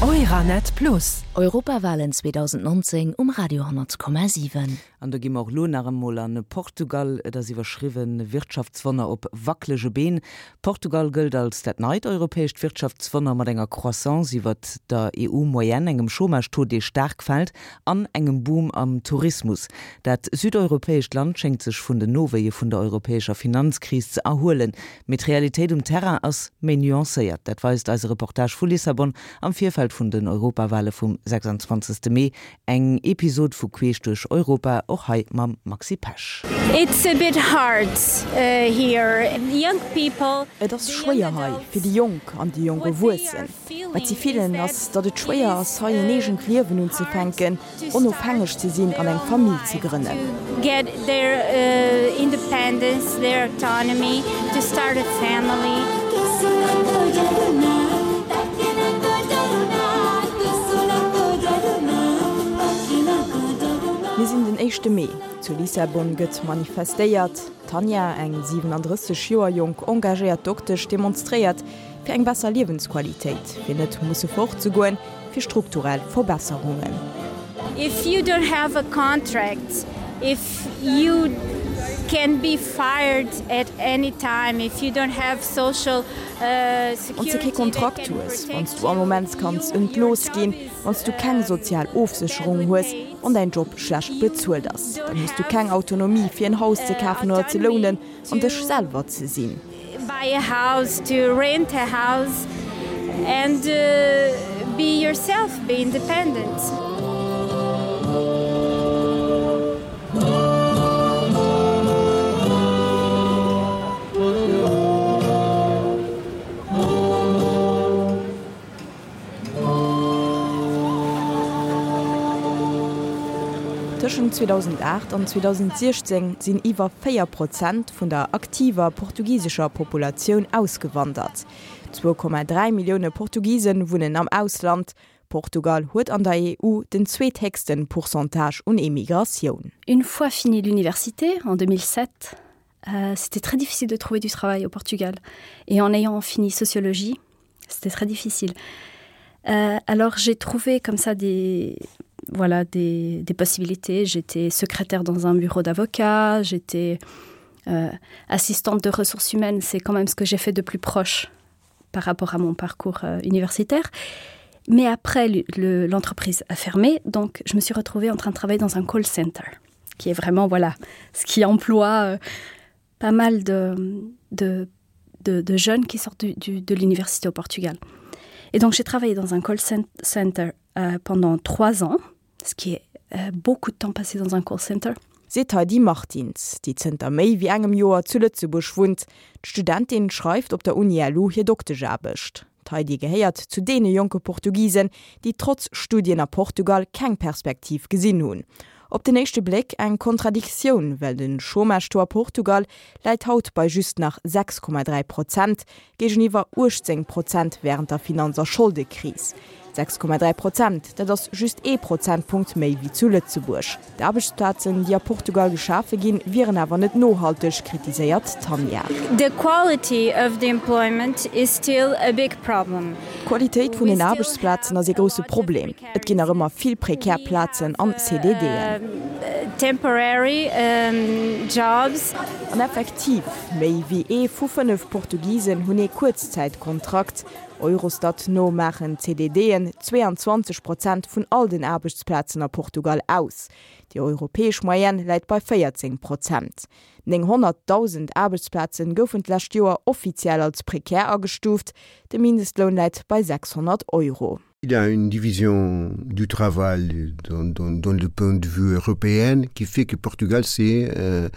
Euranet Plus. Europawalen 2019 um Radio 10,7. An do gi mer och elo nach emol an Portugal. Et ass iwwerschriwwen, Wirtschaftswonner op wackelege Been. Portugal gëllt als dat neit europäescht Wirtschaftswonner mat enger Croissance iwwert der EU-Moyenne, engem Chômage-Taux, dee staark fält, an engem Boom am Tourismus. Dat südeuropäescht Land schéngt sech vun den Nowéie vun der europäescher Finanzkris ze erhuelen. Mee d'Realitéit um Terrain ass méi nuancéiert. Dat weist eise Reportage vu Lissabon am Virfeld vun den Europawale vum 26. Mee. Eng Episod vu Queesch duerch Europa, och hei mam Maxi Pesch. It's a bit hard here. Young people. Et ass schwéier hei, fir déi Jonk an déi jonk Erwuessen. Wat si fillen, ass, datt et schwéier ass, hei en eegent Liewen unzefänken, onofhängeg ze sinn an eng Famill ze grënnen. Get their independence, their autonomy, to start a family. Mir sinn den éischte Mee. Zu Lissabon gëtt manifestéiert. D'Tanja, eng 37 Joer jonk engagéiert Doktesch, demonstréiert fir eng besser Liewensqualitéit, fir net musse fortzegoen, fir strukturell Verbesserungen. If you don't have a contract, if you can be fired at any time, if you don't have social security. Wann s de kee Kontrakt hues, wann s du all Moment kanns entlooss ginn, wann s du keng sozial Ofsécherung hues, wann däin Job schlecht bezuelt ass, dann hues du keng Autonomie fir en Haus ze kafen oder ze lounen an dech selwer ze sinn. Buy a house, to rent a house and be yourself, be independent. Tëschent 2008 an 2016 sinn iwwer 4 Prozent vun der aktiver portugisescher Populatioun ausgewandert. 2,3 Millioune Portugise wunnen am Ausland. Portugal huet an der EU den zweethéchste Pourcentage un Emigratioun. Une fois fini l'université en 2007, euh, c'était très difficile de trouver du travail au Portugal. Et en ayant fini sociologie, c'était très difficile. Euh, alors j'ai trouvé comme ça des voilà des, des possibilités. J'étais secrétaire dans un bureau d'avocat, j'étais euh, assistante de ressources humaines, c'est quand même ce que j'ai fait de plus proche par rapport à mon parcours euh, universitaire. Mais après l'entreprise le, a fermé, donc je me suis retrouvée en train de travailler dans un call center, qui est vraiment voilà ce qui emploie euh, pas mal de, de, de, de jeunes qui sortent du, du, de l'université au Portugal. Et donc j'ai travaillé dans un call center euh, pendant trois ans, ce qui est euh, beaucoup de temps passé dans un call center. Seet d'Heidi Martins, déi zënter méi wéi engem Joer zu Lëtzebuerg wunnt. D'Studentin schreift op der Uni LU hir Doktescharbecht. D'Heidi gehéiert zu deene jonke Portugisen, déi trotz Studien a Portugal keng Perspektiv gesinn hunn. Op den éischte Bléck eng Kontradiktioun, well de Chômage-Taux a Portugal läit haut bei just nach 6,3 Prozent, géigeniwwer 18 Prozent wärend der Finanz a Scholdekris. 6,3 Prozent, dat ass just ee Prozentpunkt méi wéi zu Lëtzebuerg. D'Aarbechtsplazen, déi a Portugal geschafe ginn, wieren awer net nohalteg, kritiséiert d'Tanja. The quality of the employment is still a big problem. D'Qualitéit vun den Aarbechtsplazen ass ee grousse Problem. Et ginn nach ëmmer vill prekär Plazen an CDDen. Temporary jobs. An effektiv, méi wéi ee vu 5 Portugisen hunn ee Kuerzzäitkontrakt. Eurostat no maachen d'CDDen 22 Prozent vun all den Aarbechtsplazen a Portugal aus. Déi europäesch Moyenne läit bei 14 Prozent. 900.000 Aarbechtsplaze goufen d'lescht Joer offiziell als prekär agestuuft. De Mindestloun läit bei 600 Euro. Il y a une division du travail dans, dans, dans le point de vue européen qui fait que Portugal c'est euh,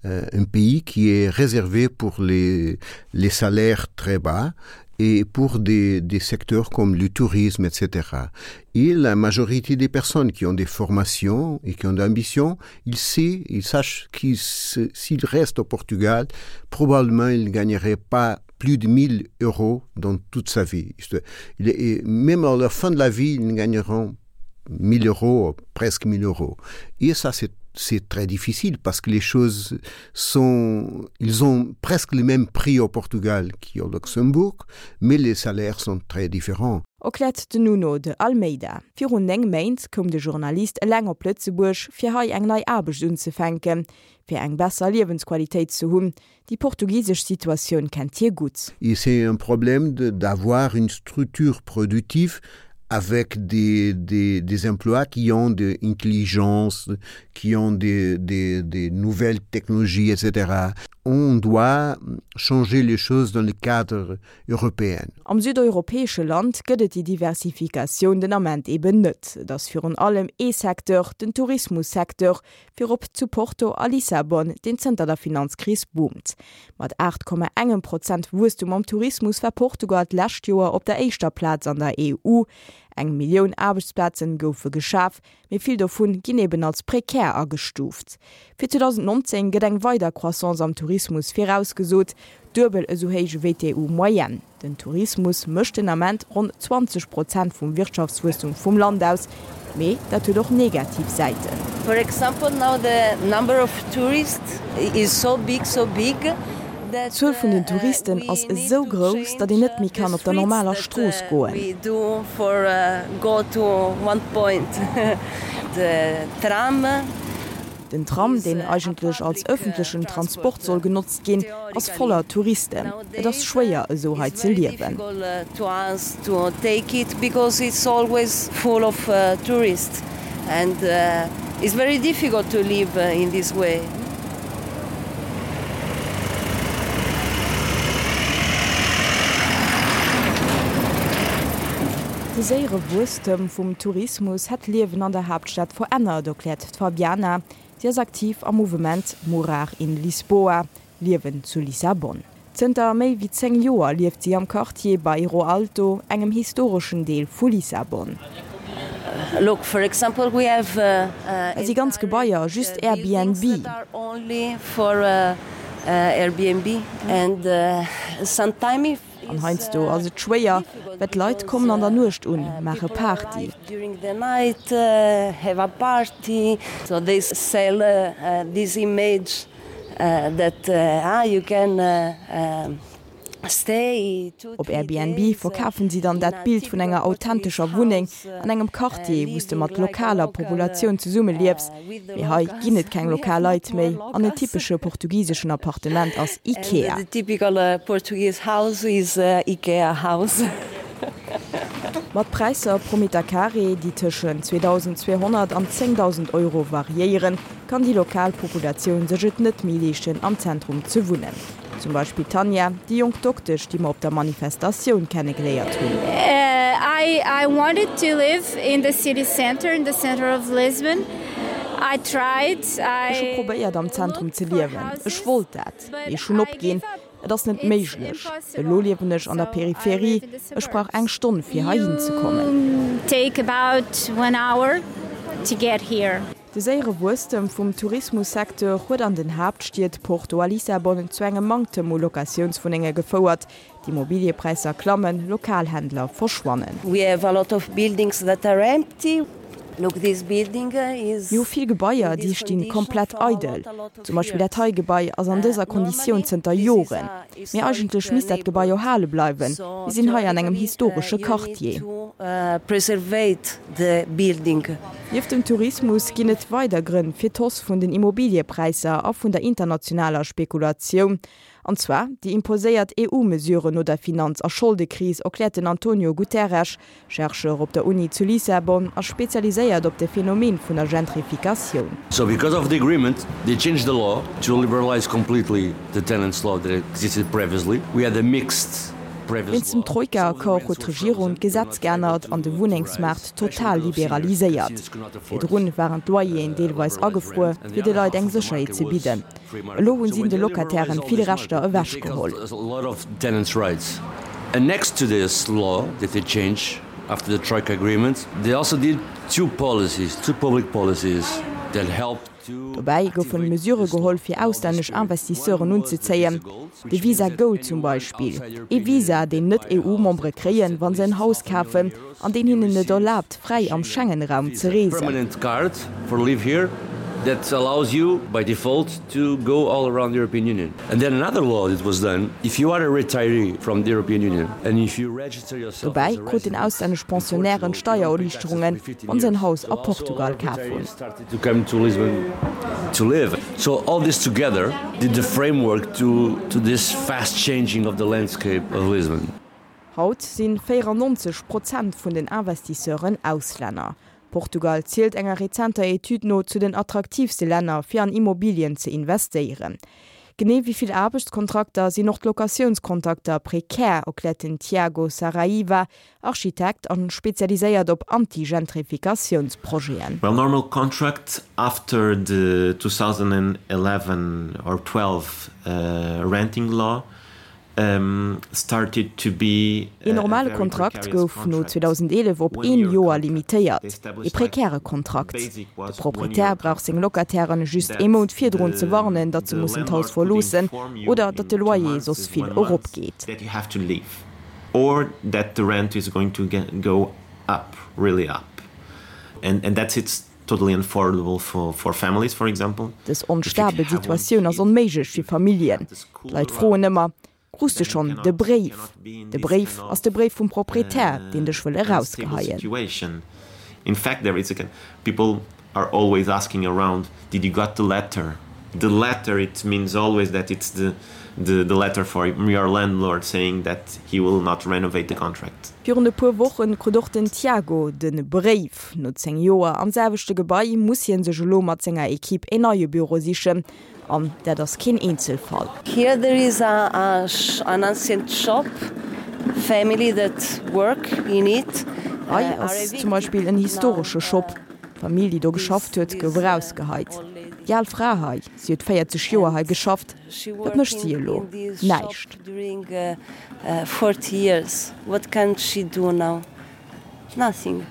euh, un pays qui est réservé pour les, les salaires très bas et pour des, des secteurs comme le tourisme, etc. Et la majorité des personnes qui ont des formations et qui ont des ambitions, ils savent, ils sachent qu'ils s'ils restent au Portugal, probablement ils ne gagneraient pas plus de 1000 euros dans toute sa vie. Et même à la fin de la vie, ils ne gagneront 1000 euros, presque 1000 euros. Et ça, c'est. C'est très difficile parce que les choses sont ils ont presque le même prix au Portugal qu'au Luxembourg, mais les salaires sont très différents. Erkläert den Nuno de Almeida. Virun 9 Méint koum de Journalist eleng op Lëtzebuerg, fir hei eng nei Aarbecht unzefänken, fir eng besser Liewensqualitéit ze hunn. Déi portugisesch Situatioun kennt hie gutt. Et c'est un problème d'avoir une structure productive avec des, des, des emplois qui ont de intelligence, qui ont des, des, des nouvelles technologies, etc. On doit changer les choses dans le cadre européen. Am südeuropäesche Land gëtt et déi Diversifikatioun den Ament eben net. Et ass virun allem ee Secteur, den Tourismussecteur, virop zu Porto a Lissabon, deen zënter der Finanzkris boomt. Mat 8,engem Prozent Wuesstum am Tourismus war Portugal d'lescht Joer op der éischter Plaz an der EU. Eng Millioun Aarbechtsplazen goufe geschaf, mee vill dovun ginn eben als prekär agestuuft. Fir 2019 gëtt eng weider Croissance am Tourismus virausgesot, duebel esou héich ewéi d'EU-Moyenne. Den Tourismus mécht den Ament ronn 20 Prozent vum Wirtschaftswuesstum vum Land aus, mee dat huet och negativ Säiten. For example now the number of tourists is so big, so big that D'Zuel vun den Touristen ass esou grouss, datt een net méi kann op der normaler Strooss goen. Den Tram, deen eigentlech als ëffentlechen Transport soll genotzt ginn, ass voller Touristen. Et ass schwéier, esou hei ze liewen. De séiere Wuesstem vum Tourismus hätt d'Liewen an der Haaptstad verännert, erkläert d'Fabiana. Si ass aktiv am Mouvement Morar in Lisboa, Liewen zu Lissabon. Zënter méi wéi 10 Joer lieft si am Quartier Bairro Alto, engem historeschen Deel vu Lissabon. Et si ganz Gebaier just Airbnb. An heiansdo ass et schwéier, well d'Leit kommen an der Nuecht un, maache Party. Op Airbnb verkafen si dann dat Bild vun enger authentescher Wunneng an engem Quartier, wou s de mat lokaler Populatioun zesumme liefs. Mee hei ginn et keng lokal Leit méi an en typesche portugiseschen Appartement ass Ikea. Mat Präisser pro Meter Carré, déi tëschent 2.200 an 10.000 Euro variéieren, kann déi lokal Populatioun sech et net méi leeschten, am Zentrum ze wunnen. Zum Beispill d'Tanja, déi jonk Doktesch, déi mer op der Manifestatioun kennegeléiert hunn. I wanted to live in the city center, in the center of Lisbon. I tried, I. Ech hu probéiert am Zentrum ze liewen, ech wollt dat, mee ech hunn opginn. Et ass net méiglech. Elo liewen ech an der Peripherie, ech brauch eng Stonn fir heihin ze kommen. Take about one hour to get here. De séiere Wuesstem vum Tourismussecteur huet an den Haaptstied Porto a Lissabon zu engem Manktem u Locatiounswunnenge gefouert. D'Immobiliëpräisser klammen, lokal Händler verschwannen. We have a lot of buildings that are empty. Look, this building is Mir hu vill Gebaier, déi sti komplett eidel. Zum Beispill dat hei Gebai ass an dëser Konditioun zënter Joren. Mee eigentlech misst dat Gebai erhale bleiwen. Mir sinn hei an engem historesche Quartier. Nieft dem Tourismus ginn et weider Grënn fir d'Hausse vun den Immobiliëpräisser a vun der internationaler Spekulatioun. An zwar déi imposéiert EU-Mesuren no der Finanz a Scholdekris, erkläert den Antonio Guterres, Chercheur op der Uni zu Lissabon a spezialiséiert op de Phänomen vun der Gentrifikatioun. So because of the agreement they changed the law to liberalize completely the tenants law that existed previously. We had a mixed previous Wéinst dem law. Troika-Accord huet d'Regierung d'Gesetz geännert an de Wunnengsmaart total liberaliséiert. Virdrun waren d'Loyeren deelweis agefruer, fir de Leit eng Sécherheet ze bidden. Elo hunn si de Locatairen vill Rechter ewechgeholl. Dobäi goufen Mesure geholl fir auslännesch Investisseuren unzezéien, de Visa Gold zum Beispill, ee Visa deen Net-EU-Membere kréien, wa se en Haus kafen, an deen hinnen et erlaabt fräi am Schengen-Raum ze reesen. That allows you by default to go all around the European Union. And then another law that was done, if you are a retiree from the European Union and if you register yourself Dobäi kruten auslännesch Pensionnairen Steiererliichterungen, wann se en Haus a Portugal kaf hunn. To come to Lisbon to live. So all this together did the framework to, to this fast changing of the landscape of Lisbon. Haut si 94 Prozent vun den Investisseuren Auslänner. Portugal zielt enger rezenter Etüd no zu den attraktiivste Länner fir an Immobilien ze investéieren. Genee wéi vill Aarbechtskontrakter sinn och d'Locatiounskontrakter prekär, erkläert den Tiago Saraiva, Architekt an spezialiséiert op Anti-Gentrifikatiounsprojeten. Well normal contract after the 2011 or 12 renting law started to be Een normale Kontrakt gouf no 2011 op een Joer limitéiert, ee prekäre Kontrakt. De Proprietär brauch seng Locatairen just ee Mount virdrun ze warnen, datt se mussen d'Haus verloossen oder datt de Loyer soss vill eropgeet. Or that the rent is going to go up, really up. And and that's it's totally unaffordable for for families, for example. Dës onstabel Situatioun ass onméiglech fir Familljen. D'Leit froen ëmmer, Krus de schonn de Bréif? De Bréif ass de Bréif vum Proprietär, deen dech wëll erausgeheien. In fact there is a people are always asking around did you got the letter the letter it means always that it's the the the letter for your landlord saying that he will not renovate the contract. Virun e puer Wochen krut och den Tiago de Bréif. No 10 Joer am selwechte Gebai muss hien sech elo mat senger Equipe een neie Büro sichen. An dat ass keen Eenzelfall. Here there is a an ancient shop family that work in it. Hei ass zum Beispill en historesche Shop. D'Famill, déi do geschafft huet, gouf erausgeheit. Déi al Fra hei, si huet 40 Joer hei geschafft. Wat mécht si elo? Näischt. Nothing.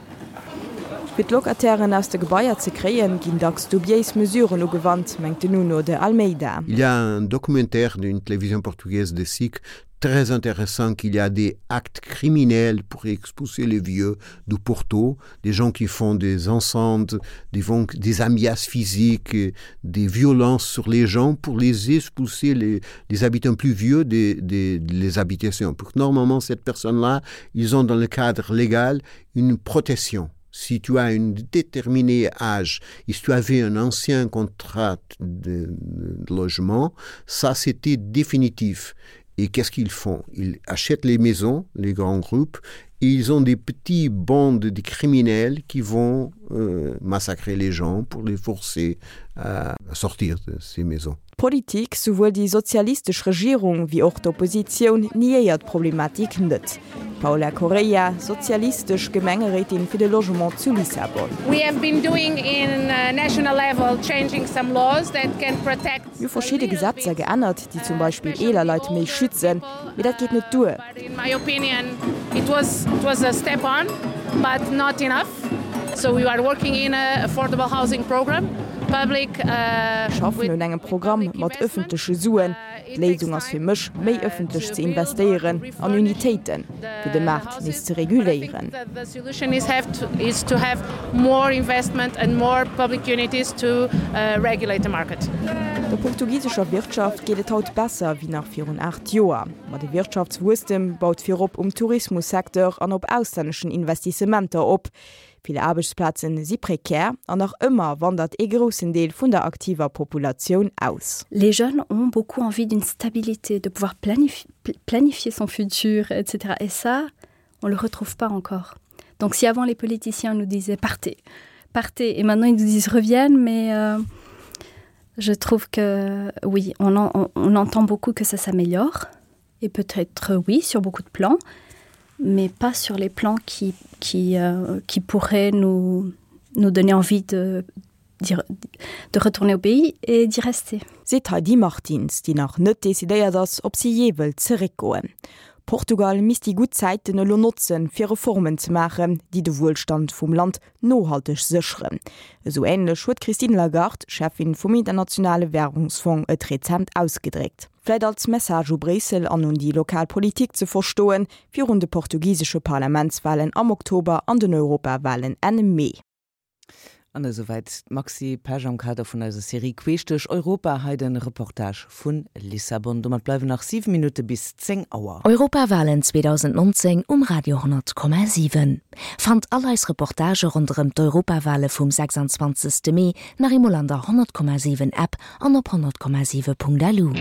Fir d'Locatairen aus de Gebaier ze kréien, ginn dacks dubiéis Mesuren ugewannt, mengt den Nuno de Almeida. Il y a un documentaire d'une télévision portugaise de SIC très intéressant qu'il y a des actes criminels pour expulser les vieux du Porto, des gens qui font des ensembles, des, des amias physiques, des violences sur les gens pour les expulser les, les habitants plus vieux des, des, des habitations. Pour que normalement cette personne-là, ils ont dans le cadre légal une protection. Si tu as une déterminée âge et si tu avais un ancien contrat de, de logement, ça c'était définitif. Et qu'est-ce qu'ils font Ils achètent les maisons, les grands groupes, et ils ont des petits bandes de criminels qui vont euh, massacrer les gens pour les forcer à sortir de ces maisons. D'Politik, souwuel déi sozialistesch Regierung wéi och d'Oppositioun, niéiert d'Problematik net. D'Paula Correia, sozialistesch Gemengeréitin fir de Logement zu Lissabon. We have been doing in national level changing some laws that can protect. Mir hu verschidde Gesetzer geännert, déi zum Beispill eeler Leit méi schützen, mee dat geet net duer. In my opinion it was it was a step on but not enough. So we are working in a affordable housing program public. Mir schaffen un engem Programm mat ëffentleche Suen. D'Léisung ass fir mech, méi ëffentlech ze investéieren an Unitéiten, fir de Maart nees ze reguléieren. The solution is have to is to have more investment and more public unities to regulate the market. Der portugisescher Wirtschaft geet et haut besser wéi nach virun 8 Joer. Ma de Wirtschaftswuesstem baut virop um Tourismussecteur an op auslänneschen Investissementer op. Vill Aarbechtsplazen si prekär an nach ëmmer wandert ee groussen Deel vun der aktiver Populatioun aus. Les jeunes ont beaucoup envie d'une stabilité, de pouvoir planifier son futur, etc. Et ça, on le retrouve pas encore. Donc si avant les politiciens nous disaient partez, partez et maintenant ils nous disent reviennent, mais euh, je trouve que oui, on, en, on, on entend beaucoup que ça s'améliore et peut-être oui sur beaucoup de plans, mais pas sur les plans qui, qui, euh, qui pourraient nous, nous donner envie de, de retourner au pays et d'y rester. Seet Heidi Martins, déi nach net decidéiert ass, ob si jee wëllt zeréckgoen. Portugal misst déi gutt Zäiten elo notzen, fir Reformen ze maachen, déi de Wuelstand vum Land nohalteg sécheren. Esou änlech huet d'Christine Lagarde, Cheffin vum Internationale Wärungsfong, et rezent ausgedréckt. Vläit als Message u Bréissel an un déi lokal Politik ze verstoen, virun de portugisesche Parlamentswalen am Oktober an den Europawalen Enn Mee. An esouwäit d'Maxi Pesch am Kader vun eiser Serie Queesch duerch Europa. Hei de Reportage vu Lissabon. Domat bleiwen nach 7 Minutte bis 10 Auer. Europawalen 2019 um Radio 10,7. Fannt all eis Reportagë ronderëm d'Europawale vum 26. Mee nach eemol an der 100,7 App an op 100,7.lu.